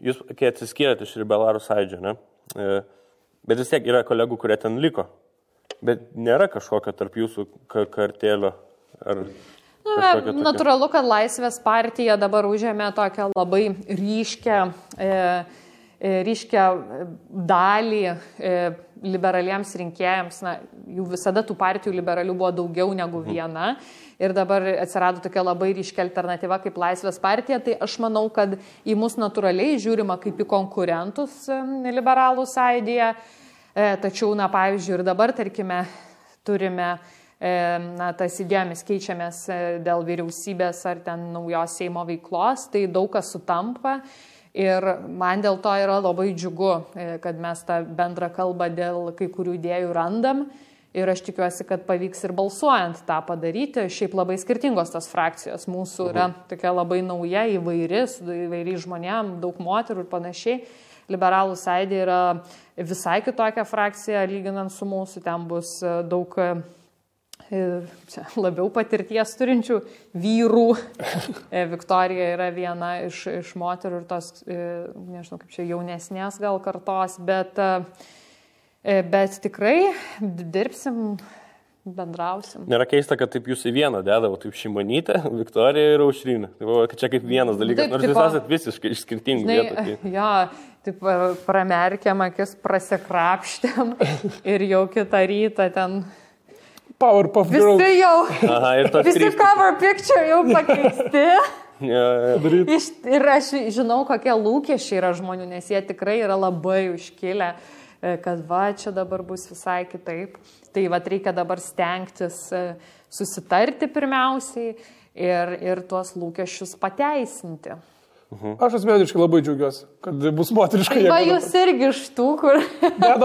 jūs, kai atsiskyrėte iš Liberalų sąjūdžio, ne? Bet vis tiek yra kolegų, kurie ten liko. Bet nėra kažkokio tarp jūsų kartėlio. Natūralu, kad Laisvės partija dabar užėmė tokią labai ryškę dalį liberaliems rinkėjams. Na, jų visada tų partijų liberalių buvo daugiau negu viena. Ir dabar atsirado tokia labai ryškia alternatyva kaip Laisvės partija. Tai aš manau, kad į mus natūraliai žiūrima kaip į konkurentus liberalų sąjūdyje. Tačiau, na, pavyzdžiui, ir dabar, tarkime, turime tas idėjomis keičiamės dėl vyriausybės ar ten naujos Seimo veiklos, tai daug kas sutampa ir man dėl to yra labai džiugu, kad mes tą bendrą kalbą dėl kai kurių idėjų randam ir aš tikiuosi, kad pavyks ir balsuojant tą padaryti. Šiaip labai skirtingos tos frakcijos, mūsų yra tokia labai nauja, įvairiai žmonėm, daug moterų ir panašiai. Liberalų sąjūdė yra visai kitokia frakcija, lyginant su mūsų, ten bus daug labiau patirties turinčių vyrų. Viktorija yra viena iš moterų ir tos, nežinau, kaip čia jaunesnės gal kartos, bet tikrai dirbsim, bendrausim. Nėra keista, kad taip jūs į vieną dedavo, taip Šimonytė, Viktorija ir Aušrinė. Tai čia kaip vienas dalykas, nors jūs esat visiškai iš skirtingų vietų. Jo, taip pramerkėm akis, prasikrapštėm ir jau kitą rytą ten... Powerpuff Girls. Visi jau, visi cover picture jau pakeisti. Ir aš žinau, kokie lūkesčiai yra žmonių, nes jie tikrai yra labai užkilę, kad va, čia dabar bus visai kitaip. Tai va, reikia dabar stengtis susitarti pirmiausiai ir tuos lūkesčius pateisinti. Aš asmeniškai labai džiaugiuosi, kad bus moteriška jėga. Va, jūs irgi iš tų, kur...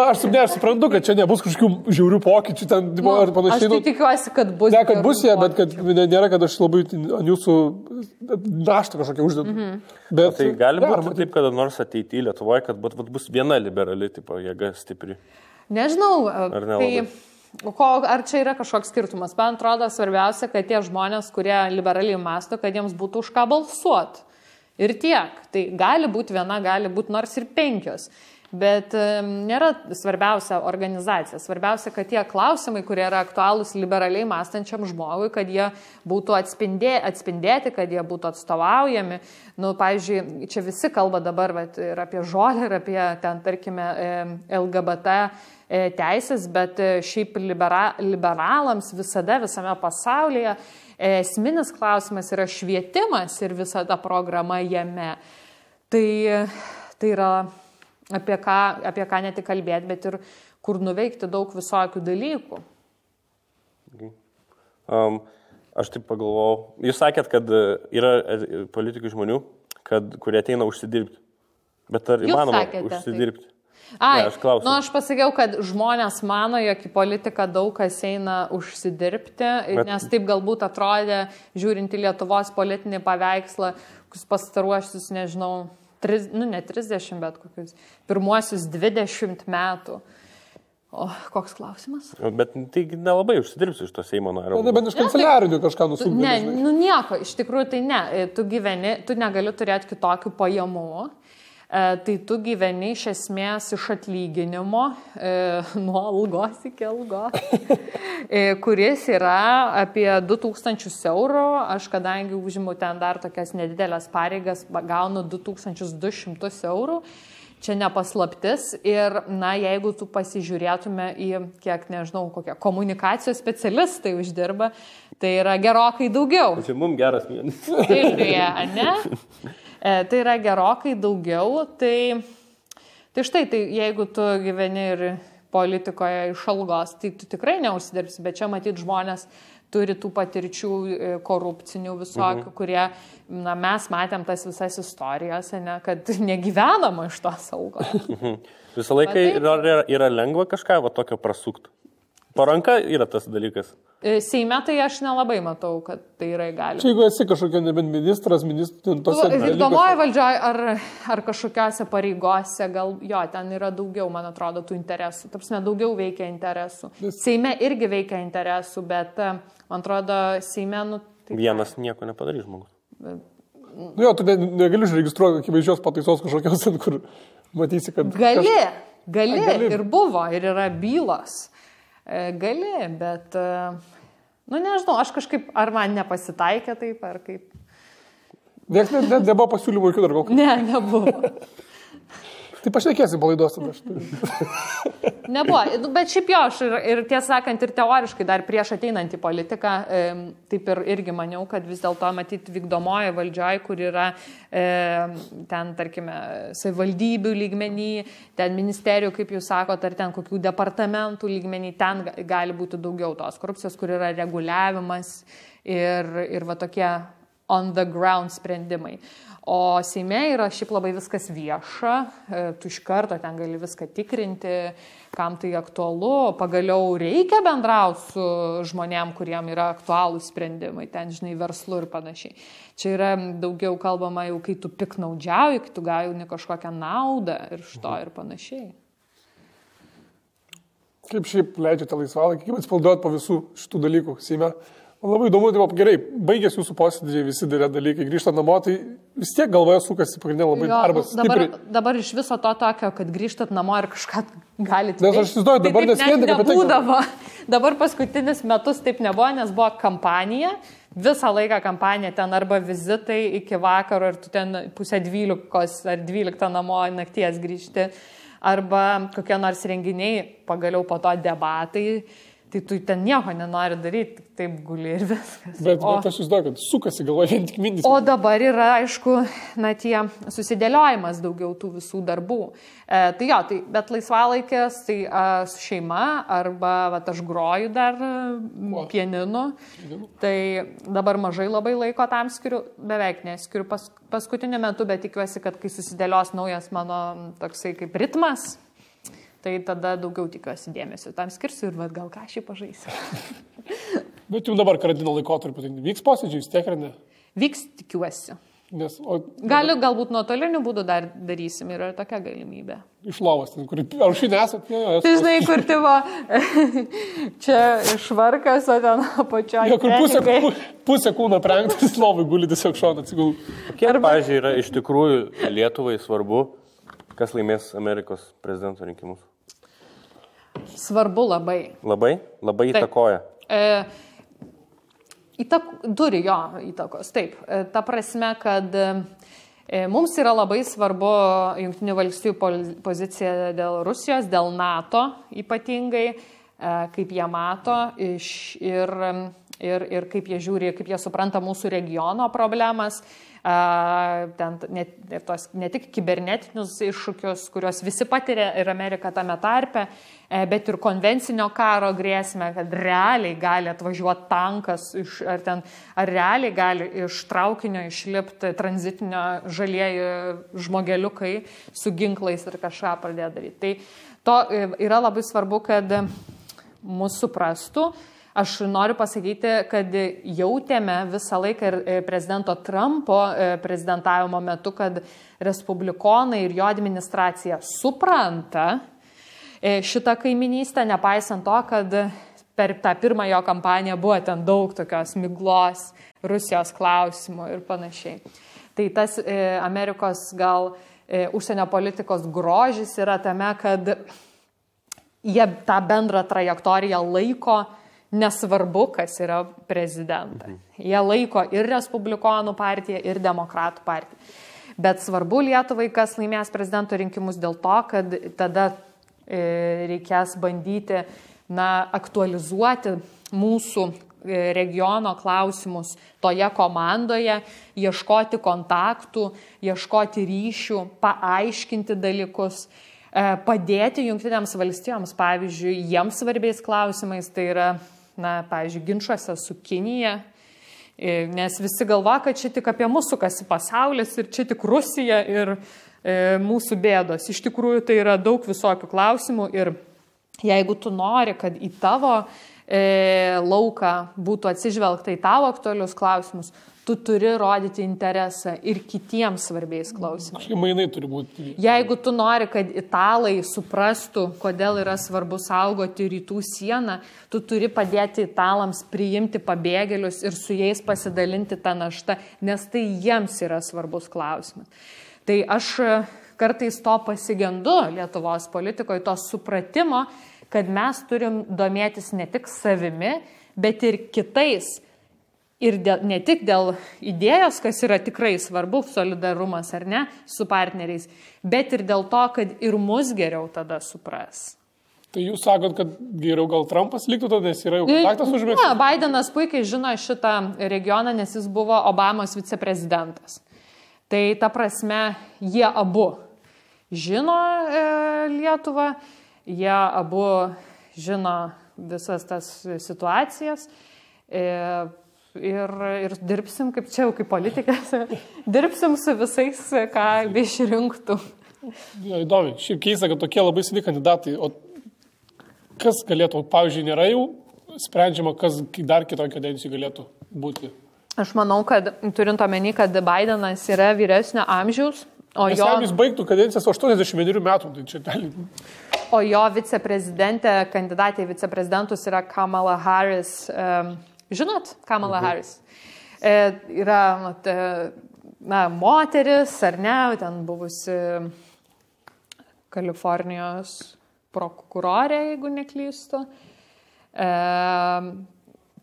Aš suprantu, kad čia nebus kažkokių žiaurių pokyčių ten ar panašiai. Aš tai tikiuosi, kad bus. Ne, kad bus jie, bet kad nėra, kad aš labai ant jūsų naštą kažkokią uždedu. Bet tai gali būti taip, kada nors ateityje Lietuvoje, kad bus viena liberali tipo jėga stipri. Nežinau, ar nelabai? Ar čia yra kažkoks skirtumas? Man atrodo, svarbiausia, kad tie žmonės, kurie liberaliai mąsto, kad jiems būtų už ką balsuoti. Ir tiek. Tai gali būti viena, gali būti nors ir 5. Bet nėra svarbiausia organizacija. Svarbiausia, kad tie klausimai, kurie yra aktualūs liberaliai mąstančiam žmogui, kad jie būtų atspindėti, kad jie būtų atstovaujami. Nu, pavyzdžiui, čia visi kalba dabar ir apie žolę, ir apie ten, tarkime, LGBT teisės, bet šiaip liberalams visada, visame pasaulyje esminis klausimas yra švietimas ir visa ta programa jame. Tai yra apie ką ne tik kalbėti, bet ir kur nuveikti daug visokių dalykų. Aš taip pagalvojau. Jūs sakėt, kad yra politikų žmonių, kurie ateina užsidirbti. Bet ar įmanoma užsidirbti? Aš pasakiau, kad žmonės mano, jog į politiką daug kas eina užsidirbti, nes taip galbūt atrodė, žiūrint į Lietuvos politinį paveikslą, kokius pastaruosius, nežinau, ne 30, bet kokius pirmuosius 20 metų. O koks klausimas? Bet tai nelabai užsidirbsi iš to Seimo nario. Bet iš kanceliarinių kažką nusumdė. Ne, nieko, iš tikrųjų tai ne. Tu negali turėti kitokių pajamų. Tai tu gyveni iš esmės iš atlyginimo, nuo algos iki algos, kuris yra apie 2000 eurų. Aš kadangi užimu ten dar tokias nedidelės pareigas, gaunu 2200 eurų. Čia nepaslaptis ir, na, jeigu tu pasižiūrėtume į, kiek, nežinau, kokie komunikacijos specialistai uždirba, tai yra gerokai daugiau. Tai mums geras mėnesis. Tai, ne? Tai yra gerokai daugiau, tai štai, tai jeigu tu gyveni ir politikoje iš algos, tai tu tikrai neužsidirbsi, bet čia matyt žmonės turi tų patirčių korupcinių visokių, kurie, mes matėm tas visas istorijas, ne, kad negyvenama iš to saugo. Visą laiką yra lengva kažką tokio prasukti. Paranka yra tas dalykas. Seime tai aš nelabai matau, kad tai yra įgalima. Čia jeigu esi kažkokia nebent ministras, vykdomoji valdžioje ar kažkokiose pareigose, gal jo, ten yra daugiau, man atrodo, tų interesų. Tarpsime, daugiau veikia interesų. Seime irgi veikia interesų, bet, man atrodo, Seime... Vienas nieko nepadarys žmogus. Jo, tu negali užregistruoti akivaizdžios pataisos kažkokios, kur matysi, kad... Gali. Ir buvo, ir yra bylos. Gali, bet, nežinau, aš kažkaip, ar man nepasitaikė taip, ar kaip. Nebuvo pasiūlymų jokių dar gal. Ne, nebuvo. Tai pašnekėsim palaidos tada. Nebuvo, bet šiaip jo, aš ir tiesą sakant, ir teoriškai dar prieš ateinant į politiką, taip ir irgi maniau, kad vis dėlto matyti vykdomoji valdžioje, kur yra ten, tarkime, savivaldybių lygmenį, ten ministerijų, kaip jūs sakote, ar ten kokių departamentų lygmenį, ten gali būti daugiau tos korupcijos, kur yra reguliavimas ir va tokie on the ground sprendimai. O Seime yra šiaip labai viskas vieša, tu iš karto ten gali viską tikrinti, kam tai aktualu, pagaliau reikia bendrauti su žmonėm, kuriem yra aktualūs sprendimai, ten, žinai, verslu ir panašiai. Čia yra daugiau kalbama jau, kai tu piknaudžiauji, kai tu gauni kažkokią naudą ir iš to ir panašiai. Kaip šiaip leidžiate laisvalaikį, kaip atsipalduot po visų šitų dalykų Seime? Man labai įdomu, tai gerai, baigėsi jūsų posėdžiai, visi dalykai, grįžta namo, tai vis tiek galvoje sukasi pagrindinė labai darbas. Dabar iš viso to tokio, kad grįžtat namo ir kažką galite. Nes aš įsivaizduoju, dabar neskėdė, kad nebūdavo. Dabar paskutinis metus taip nebuvo, nes buvo kampanija, visą laiką kampanija, ten arba vizitai iki vakaro ir tu ten 11:30 ar 12 namo nakties grįžti, arba kokie nors renginiai, pagaliau po to debatai. Tai tu ten nieko nenori daryti, taip guli ir viskas. Bet aš įsivaizduoju, kad sukasi galvoje vien tik mintis. O dabar yra, aišku, tie susidėliojimas daugiau tų visų darbų. Tai jo, bet laisvalaikės, tai su šeima, arba aš groju dar pianinu. Tai dabar mažai labai laiko tam skiriu, beveik neskiriu paskutiniu metu, bet tikiuosi, kad kai susidėlios naujas mano toksai kaip ritmas, tai tada daugiau tikiuosi dėmesio tam skirsiu ir gal ką šį pažaisiu. Bet jau dabar karantino laikotarpiu, tai vyks posėdžiai, vis tiek ar ne? Vyks, tikiuosi. Galbūt nuotoliniu būdu dar darysim, yra tokia galimybė. Iš lovos, ten, kur aušinė esat? Tai žinai, kur tipo, čia švarkas, o ten apačioje. Kur pusė kūno prengtas, lovai guli tiesiog šauna atsigulų. Kiek, pavyzdžiui, yra iš tikrųjų Lietuvai svarbu, kas laimės Amerikos prezidento rinkimus? Svarbu labai. Labai įtakoja. Turi jo įtakos, taip. Ta prasme, kad mums yra labai svarbu Jungtinių valstijų pozicija dėl Rusijos, dėl NATO ypatingai, kaip jie mato ir kaip jie žiūri, kaip jie supranta mūsų regiono problemas. Ne tik kibernetinius iššūkius, kuriuos visi patiria ir Amerika tame tarpe, bet ir konvencinio karo grėsmę, kad realiai gali atvažiuoti tankas, ar realiai gali iš traukinio išlipti tranzitinio žalieji žmogeliukai su ginklais ir kažką pradėti daryti. Tai to yra labai svarbu, kad mus suprastų. Aš noriu pasakyti, kad jautėme visą laiką ir prezidento Trumpo prezidentavimo metu, kad respublikonai ir jo administracija supranta šitą kaiminystę, nepaisant to, kad per tą pirmą jo kampaniją buvo ten daug tokios miglos, Rusijos klausimų ir panašiai. Tai tas Amerikos gal užsienio politikos grožis yra tame, kad jie tą bendrą trajektoriją laiko, nesvarbu, kas yra prezidentas. Jie laiko ir Respublikonų partiją, ir Demokratų partiją. Bet svarbu Lietuvai, kas laimės prezidento rinkimus dėl to, kad tada reikės bandyti aktualizuoti mūsų regiono klausimus toje komandoje, ieškoti kontaktų, ieškoti ryšių, paaiškinti dalykus, padėti Jungtinėms valstijoms, pavyzdžiui, jiems svarbiais klausimais, tai yra pavyzdžiui, ginčuose su Kinija, nes visi galva, kad čia tik apie mūsų sukasi pasaulis ir čia tik Rusija ir mūsų bėdos. Iš tikrųjų, tai yra daug visokių klausimų ir jeigu tu nori, kad į tavo lauką būtų atsižvelgta į tavo aktualius klausimus, tu turi rodyti interesą ir kitiems svarbiais klausimais. Mainai turi būti. Jeigu tu nori, kad italai suprastų, kodėl yra svarbu saugoti rytų sieną, tu turi padėti italams priimti pabėgėlius ir su jais pasidalinti tą naštą, nes tai jiems yra svarbus klausimas. Tai aš kartais to pasigendu Lietuvos politikoje, to supratimo, kad mes turim domėtis ne tik savimi, bet ir kitais. Ir ne tik dėl idėjos, kas yra tikrai svarbu, solidarumas ar ne, su partneriais, bet ir dėl to, kad ir mus geriau tada supras. Tai jūs sakot, kad geriau gal Trumpas liktų tada, nes yra jau kontaktas užmėgtas? Ne, Bidenas puikiai žino šitą regioną, nes jis buvo Obamos viceprezidentas. Tai ta prasme, jie abu žino Lietuvą, jie abu žino visas tas situacijas. Ir dirbsim, kaip čia jau kaip politikas, dirbsim su visais, ką išrinktų. Ja, įdomi. Šiaip keista, kad tokie labai seni kandidatai. O kas galėtų, pavyzdžiui, nėra jau sprendžiama, kas dar kitoj kadencijai galėtų būti? Aš manau, kad turint omeny, kad Bidenas yra vyresnio amžiaus, o jo... Jis baigtų kadencijas 81 metų, tai čia gali... O jo viceprezidentė, kandidatė į viceprezidentus yra Kamala Harris. Žinot, Kamala Harris yra moteris, ar ne, ten buvusi Kalifornijos prokurorė, jeigu neklystu.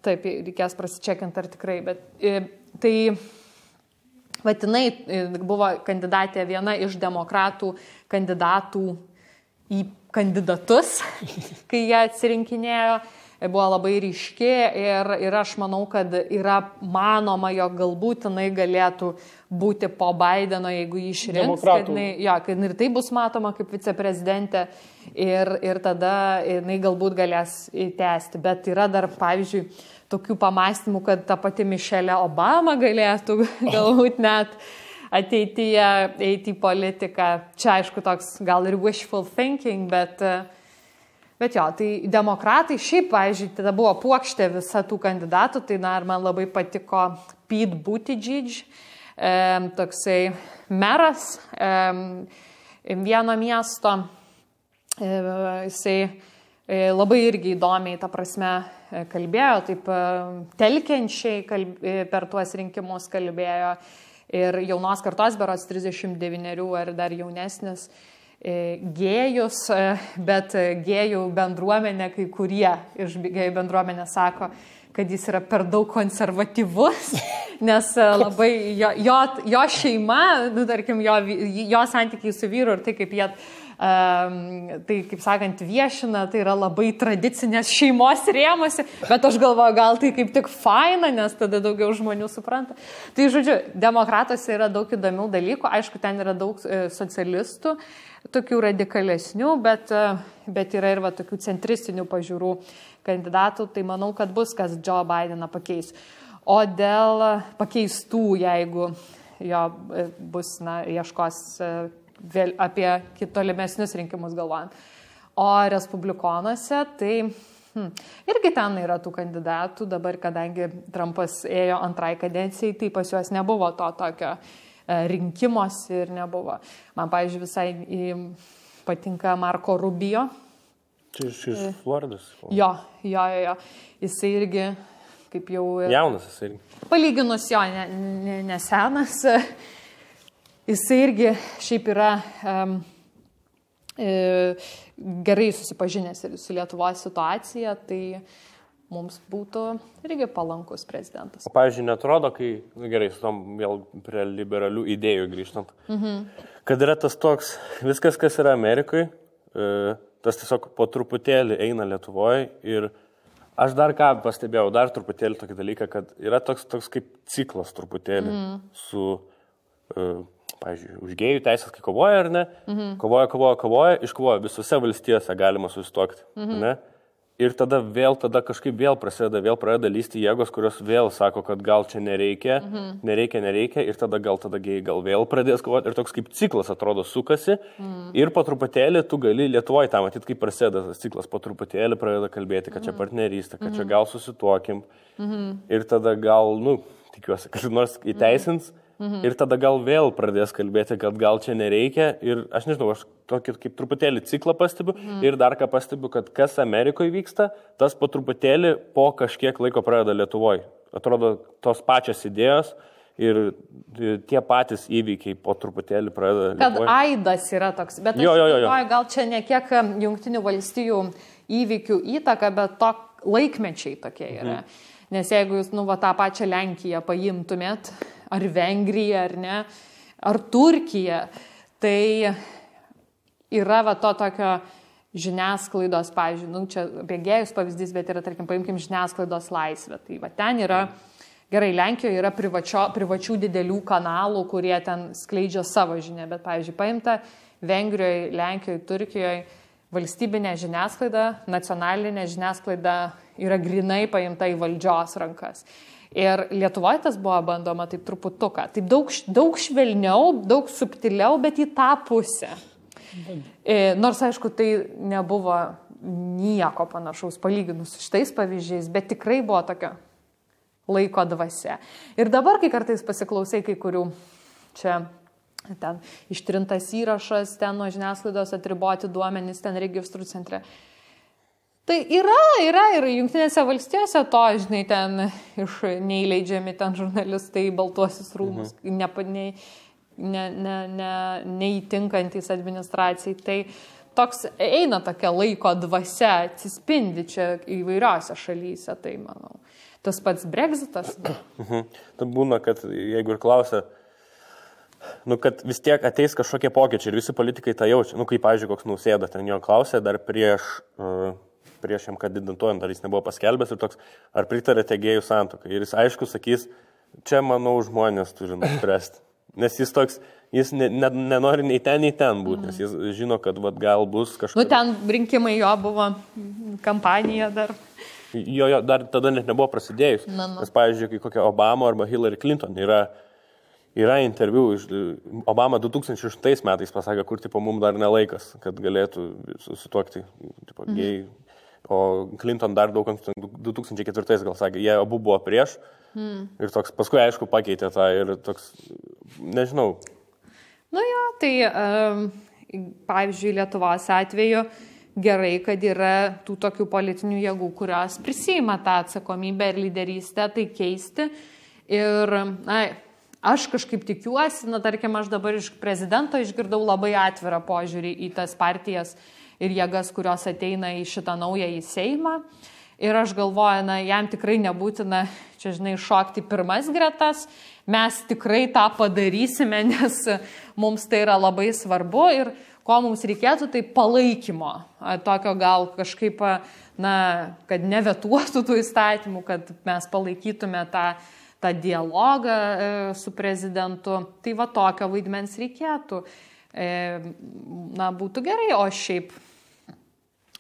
Taip, reikės prasičekinti, ar tikrai, bet tai vadinai buvo kandidatė viena iš demokratų kandidatų į kandidatus, kai jie atsirinkinėjo. Buvo labai ryški ir aš manau, kad yra manoma, jog galbūt jinai galėtų būti po Bideno, jeigu jį išrinks, kad ir tai bus matoma kaip viceprezidentė ir tada jinai galbūt galės įtęsti. Bet yra dar, pavyzdžiui, tokių pamastymų, kad ta pati Michelle Obama galėtų galbūt net ateityje eiti į politiką. Čia, aišku, toks gal ir wishful thinking, Bet jo, tai demokratai šiaip, pavyzdžiui, tada buvo puokštė visa tų kandidatų, tai man labai patiko Pete Buttigieg, toksai meras vieno miesto, jisai labai irgi įdomiai, ta prasme, kalbėjo, taip telkiančiai per tuos rinkimus kalbėjo ir jaunos kartos berods 39 ar dar jaunesnis, gėjus, bet gėjų bendruomenė, kai kurie iš gėjų bendruomenės sako, kad jis yra per daug konservatyvus, nes labai jo šeima, tarkim, jo santykiai su vyru ir tai, kaip jie, tai, kaip sakant, viešina, tai yra labai tradicinės šeimos rėmose, bet aš galvoju, gal tai kaip tik faina, nes tada daugiau žmonių supranta. Tai, žodžiu, demokratuose yra daug įdomių dalykų, aišku, ten yra daug socialistų, tokių radikalesnių, bet yra ir tokių centristinių pažiūrų kandidatų, tai manau, kad bus, kas Joe Bideną pakeis. O dėl pakeistų, jeigu jo bus, ieškos vėl apie tolimesnius rinkimus galvojant. O respublikonuose, tai irgi ten yra tų kandidatų, dabar, kadangi Trumpas ėjo antrai kadencijai, tai pas juos nebuvo to tokio rinkimuose ir nebuvo. Man, pavyzdžiui, visai patinka Marco Rubio. Čia iš Floridos. Jo. Jisai irgi, kaip jau... Jaunas jisai irgi. Palyginus jo, nesenas. Jisai irgi šiaip yra gerai susipažinęs ir su Lietuvos situacija, tai mums būtų irgi palankus prezidentas. O, pavyzdžiui, netrodo, kai, gerai, su tom vėl prie liberalių idėjų grįžtant, kad yra tas toks, viskas, kas yra Amerikoje, tas tiesiog po truputėlį eina Lietuvoje ir aš dar ką pastebėjau, dar truputėlį tokį dalyką, kad yra toks kaip ciklas truputėlį su, pavyzdžiui, už gėjų teisės, kai kovoja ar ne, kovoja, iškovoja, visose valstijose galima susituokti, ne? Ir tada kažkaip vėl pradeda lysti jėgos, kurios vėl sako, kad gal čia nereikia, ir tada gėjai gal vėl pradės kovoti. Ir toks kaip ciklas atrodo sukasi. Ir po truputėlį tu gali Lietuvoje tą matyti, kaip prasideda tas ciklas, po truputėlį pradeda kalbėti, kad čia partnerystė, kad čia gal susituokim. Ir tada gal, tikiuosi, kad nors įteisins. Ir tada gal vėl pradės kalbėti, kad gal čia nereikia. Ir aš nežinau, aš tokį kaip truputėlį ciklą pastebiu. Ir dar ką pastebiu, kad kas Amerikoje vyksta, tas po truputėlį po kažkiek laiko pradeda Lietuvoje. Atrodo, tos pačios idėjos ir tie patys įvykiai po truputėlį pradeda Lietuvoje. Kad aidas yra toks. Bet aš galvoju, gal čia ne kiek Jungtinių valstijų įvykių įtaka, bet to laikmečiai tokie yra. Nes jeigu jūs, tą pačią Lenkiją paimtumėt, ar Vengriją, ar ne, ar Turkiją, tai yra to tokio žiniasklaidos, pavyzdžiui, čia bėgėjus pavyzdys, bet yra, tarkim, paimkim žiniasklaidos laisvę. Tai ten yra, gerai, Lenkijoje yra privačių didelių kanalų, kurie ten skleidžia savo žinią, bet, pavyzdžiui, paimta Vengrijoje, Lenkijoje, Turkijoje, valstybinė žiniasklaida, nacionalinė žiniasklaida yra grinai paimta į valdžios rankas. Ir Lietuvoje tas buvo bandoma taip truputuką. Taip daug švelniau, daug subtiliau, bet į tą pusę. Nors, aišku, tai nebuvo nieko panašaus palyginus su šitais pavyzdžiais, bet tikrai buvo tokia laiko dvasia. Ir dabar, kai kartais pasiklausai kai kurių čia ten ištrintas įrašas, ten nuo žiniasklaidos atriboti duomenys, ten registrų centre. Tai yra ir Jungtinėse valstijose to, žinai, ten neįleidžiami ten žurnalistai į Baltuosius rūmus, neįtinkantys administracijai. Tai toks eina tokia laiko dvasia, atsispindi čia įvairiose šalyse, tai manau. Tas pats Brexitas. Tai būna, kad jeigu ir klausia, kad vis tiek ateis kažkokie pokyčiai ir visi politikai tą jaučia. Kaip, pavyzdžiui, koks Nausėda ten jo klausė dar prieš jam kandidatuojant, ar jis nebuvo paskelbęs ir toks, ar pritarėte gėjų santuokai. Ir jis aišku sakys, čia, manau, žmonės turi nuspręsti. Nes jis toks, jis nenori nei ten būti, nes jis žino, kad gal bus kažkas. Ten rinkimai jo buvo, kampanija dar. Jo, dar tada net nebuvo prasidėjus. Nes, pavyzdžiui, kai kokia Obama arba Hillary Clinton yra interviu, Obama 2006 metais pasakė, kur mums dar nelaikas, kad galėtų susituokti gėjai. O Clinton dar daug 2004 gal sakė, jie abu buvo prieš ir toks, paskui aišku pakeitė tą ir toks, nežinau. Tai pavyzdžiui, Lietuvos atveju gerai, kad yra tų tokių politinių jėgų, kurios prisima tą atsakomybę ir lyderystę, tai keisti. Ir aš kažkaip tikiuosi, tarkim, aš dabar iš prezidento išgirdau labai atvirą požiūrį į tas partijas ir jėgas, kurios ateina į šitą naująjį Seimą. Ir aš galvoju, jam tikrai nebūtina, čia žinai, šokti pirmas gretas. Mes tikrai tą padarysime, nes mums tai yra labai svarbu. Ir ko mums reikėtų, tai palaikymo. Tokio gal kažkaip, kad nevetuotų tų įstatymų, kad mes palaikytume tą dialogą su prezidentu. Tai tokio vaidmens reikėtų. Būtų gerai, o šiaip,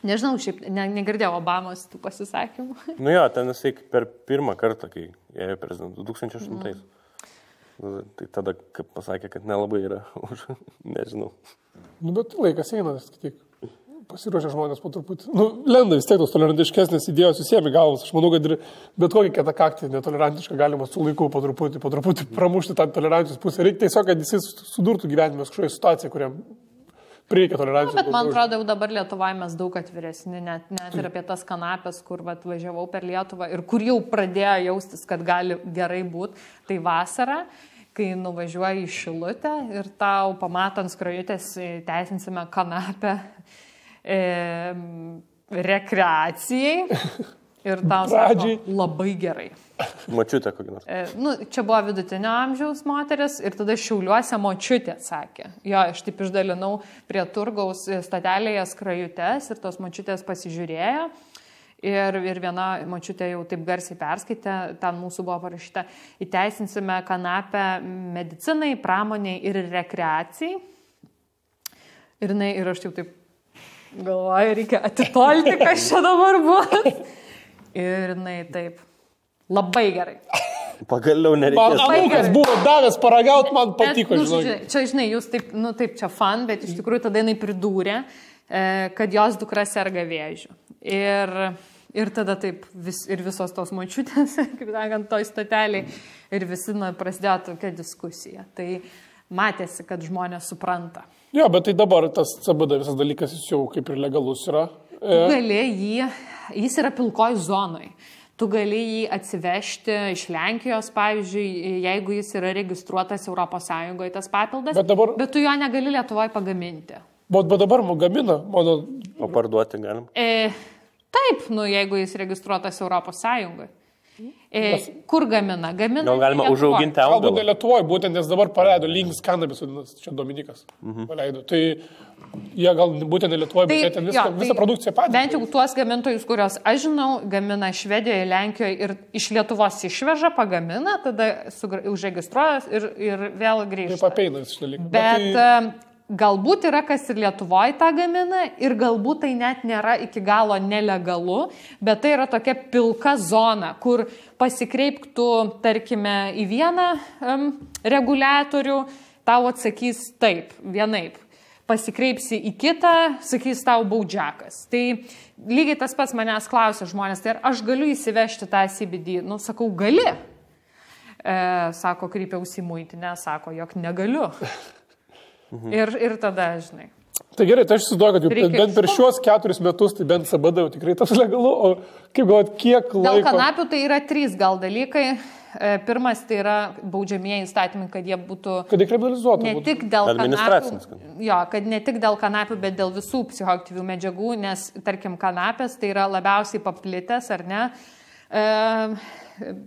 nežinau, negirdėjau Obamos tų pasisakymų. Ten jisai per pirmą kartą, kai ėjo prezidentu, 2008. Tai tada, kaip pasakė, kad nelabai yra už, nežinau. Bet laikas eina, tik pasiruošę žmonės po truputį. Lenda vis tiek tos tolerantiškesnės idėjos susiemi galvas. Aš manau, kad ir bet kokį kitą kaktį netolerantišką galima su laiku po truputį pramušti tą tolerancijos pusę. Reikia tiesiog, kad jis sudurtų gyvenime kažkoje situacijoje, kuriam reikia tolerancijos. Bet man atrodo, jau dabar Lietuvoje mes daug atviresni, net ir apie tas kanapės, kur važiavau per Lietuvą ir kur jau pradėjo jaustis, kad gali gerai būti, tai vasara. Kai nuvažiuoji į Šilutę ir tau pamatant skrajutės teisinsime kanapę rekreacijai ir tau sako labai gerai. Močiutė kokį nors. Čia buvo vidutinio amžiaus moteris ir tada Šiauliuose močiutė sakė. Aš taip išdalinau prie turgaus statelėje skrajutės ir tos močiutės pasižiūrėjo. Ir viena močiutė jau taip garsiai perskaitė, ten mūsų buvo parašyta, įteisinsime kanapę medicinai, pramoniai ir rekreacijai. Ir aš jau taip Galvoju, reikia atitolti, kas čia dabar buvo. Ir jinai taip, labai gerai. Pagaliau nereikia. Man anūkas buvo davęs paragauti, man patiko, Čia, žinai, jūs taip, taip, čia fan, bet iš tikrųjų tada jinai pridūrė, kad jos dukra serga vėžiu. Ir tada taip, ir visos tos močiutės, kaip sakant, toj stoteliai, ir visi prasidėjo tokia diskusija. Tai matėsi, kad žmonės supranta. Jo, bet tai dabar tas CBD visas dalykas jis jau kaip ir legalus yra. Tu gali jis yra pilkoj zonoj. Tu gali jį atsivežti iš Lenkijos, pavyzdžiui, jeigu jis yra registruotas ES tas papildas, bet tu jo negali Lietuvoje pagaminti. Bet dabar gamina, mano... O parduoti galim? Taip, jeigu jis registruotas ES. Kur gamina? Gamina. Gal galima užauginti augalą? Galbūt ne Lietuvoje, būtent nes dabar paleido Link's Cannabis, čia Dominikas paleido. Tai jie gal būtent ne Lietuvoje, bet ten visą produkciją patys. Bent jau tuos gamintojus, kurios aš žinau, gamina Švedijoje, Lenkijoje ir iš Lietuvos išveža, pagamina, tada užregistruojas ir vėl grįžta. Taip apeina šis dalykas. Bet galbūt yra kas ir Lietuvoje tą gamina ir galbūt tai net nėra iki galo nelegalu, bet tai yra tokia pilka zona, kur pasikreiptų, tarkime, į vieną reguliatorių, tau atsakys taip, vienaip. Pasikreipsi į kitą, sakys tau baudžiakas. Tai lygiai tas pats manęs klausia žmonės, tai ar aš galiu įsivežti tą CBD? Sakau, gali. Sako, kreipiausi į muitinę, sako, jog negaliu. Ir tada, žinai. Tai gerai, tai aš įsivaizduoju, kad bent per šiuos 4 metus, tai bent CBD jau tikrai tas legalu, o kaip galvot, kiek laiko... Dėl kanapių tai yra 3 gal dalykai. Pirmas tai yra baudžiamieji įstatymai, kad jie būtų... Kad dekriminalizuotų. Ne tik dėl kanapių, kad ne tik dėl kanapių, bet dėl visų psichoaktyvių medžiagų, nes, tarkim, kanapės tai yra labiausiai paplitęs, ar ne,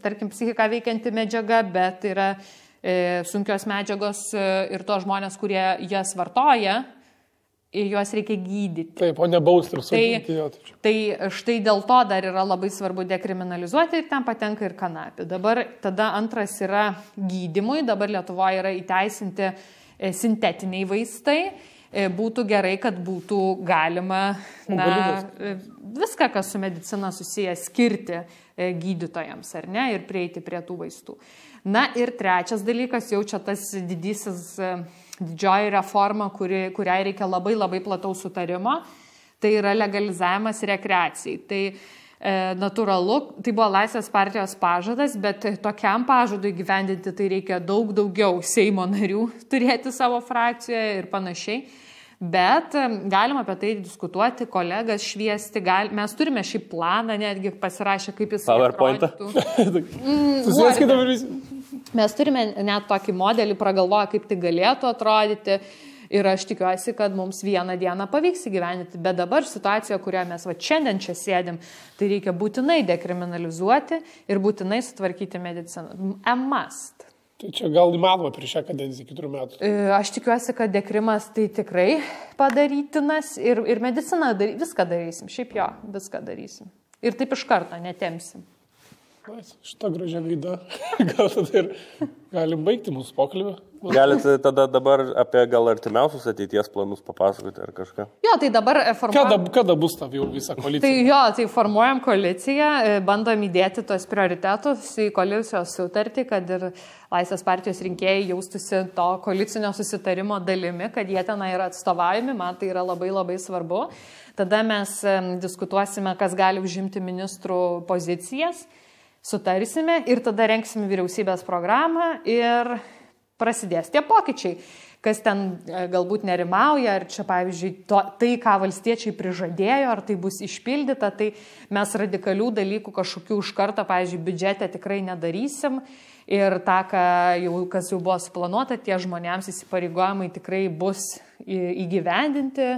tarkim, psichiką veikianti medžiaga, bet yra sunkios medžiagos ir to žmonės, kurie jas vartoja, juos reikia gydyti. Taip, o ne bausti ir sudėti. Tai štai dėl to dar yra labai svarbu dekriminalizuoti ir ten patenka ir kanapė. Dabar tada antras yra gydymui, dabar Lietuvoje yra įteisinti sintetiniai vaistai. Būtų gerai, kad būtų galima viską, kas su medicina susiję, skirti gydytojams, ar ne, ir prieiti prie tų vaistų. Na ir trečias dalykas, jau čia tas didžioji reforma, kuriai reikia labai labai plataus sutarimo, tai yra legalizavimas rekreacijai. Tai natūralu, tai buvo Laisvės partijos pažadas, bet tokiam pažadui gyvendinti tai reikia daug daugiau Seimo narių turėti savo frakcijoje ir panašiai. Bet galima apie tai diskutuoti, kolegas šviesti, mes turime šį planą, netgi pasirašę, kaip jis atrodytų. Susieskite visi. Mes turime net tokį modelį, pragalvoję, kaip tai galėtų atrodyti. Ir aš tikiuosi, kad mums vieną dieną pavyks įgyvendinti. Bet dabar situacija, kurioje mes šiandien čia sėdim, tai reikia būtinai dekriminalizuoti ir būtinai sutvarkyti mediciną. A must. Tai čia gal įmanoma prieš šią kadenciją 4 metų. Aš tikiuosi, kad dekrimas tai tikrai padarytinas ir mediciną viską darysim. Šiaip jo, viską darysim. Ir taip iš karto netemsim. Šitą gražią gaidą. Gal tada ir galim baigti mūsų pokalbį. Galite tada dabar apie gal artimiausius ateities planus papasakoti ar kažką? Jo, tai dabar formuojam... Kada bus ta jau visa koalicija? Tai jo, tai formuojam koaliciją, bandom įdėti tos prioritetus į koalicijos sutartį, kad ir Laisvės partijos rinkėjai jaustųsi to koalicinio susitarimo dalimi, kad jie ten yra atstovaujami, man tai yra labai labai svarbu. Tada mes diskutuosime, kas gali užimti ministrų pozicijas, sutarsime ir tada renksime vyriausybės programą ir prasidės tie pokyčiai. Kas ten galbūt nerimauja, ar čia, pavyzdžiui, tai, ką valstiečiai prižadėjo, ar tai bus išpildyta, tai mes radikalių dalykų kažkokių iš karto, pavyzdžiui, biudžete tikrai nedarysim ir tą, kas jau buvo suplanuota, tie žmonėms įsipareigojimai tikrai bus įgyvendinti.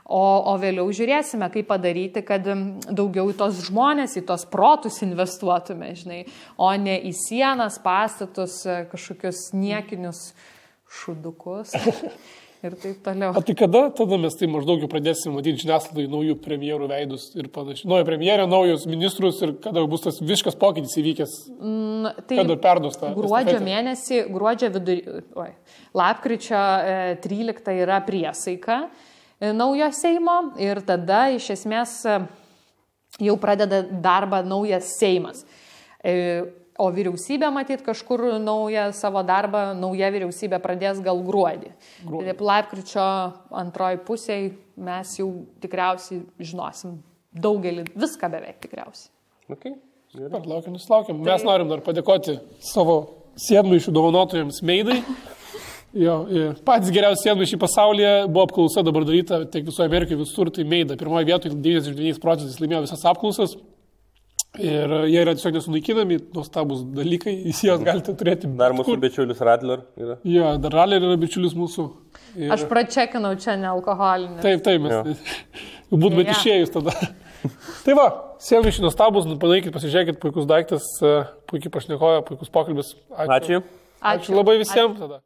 O vėliau žiūrėsime, kaip padaryti, kad daugiau į tos žmonės, į tos protus investuotume, žinai, o ne į sienas, pastatus, kažkokius niekinius šudukus ir taip toliau. O tai kada tada mes tai maždaug jau pradėsime matyti žiniasklaidai naujų premjerų veidus ir panašiai? Nauja premjerė, naujus ministrus ir kada bus tas visiškas pokytis įvykęs? Tai kada perduos tą? Gruodžio mėnesį, lapkričio 13 yra priesaika. naujo Seimo ir tada iš esmės jau pradeda darbą naujas Seimas. O vyriausybė, matyt, kažkur naują savo darbą, nauja vyriausybė pradės gal gruodį. Lapkričio antroji pusėje mes jau tikriausiai žinosim daugelį, viską beveik tikriausiai. Okay. Laukiam. Mes norim dar padėkoti savo sėdmaišių dovanotojams Meidai. Jo, patys geriausi sėdmaišiai pasaulyje buvo apklausa dabar daryta, tiek visoje Amerikoje visur, tai Meida. Pirmoje vietoje 99% laimėjo visas apklausas. Ir jie yra tiesiog nesunaikinami, nuostabus dalykai, jūs juos galite turėti. Dar mūsų bičiulis Radler yra. Jo, dar Radler yra bičiulis mūsų. Ir... Aš pračekinau čia nealkoholinį. Taip, mes. Būt bet išėjus tada. Tai va, sėdmaišiai nuostabus, padarykit, pasižiūrėkit, puikus daiktas, puikiai pašnekoja, puikus pokalbis. Ačiū. Ačiū labai visiems tada.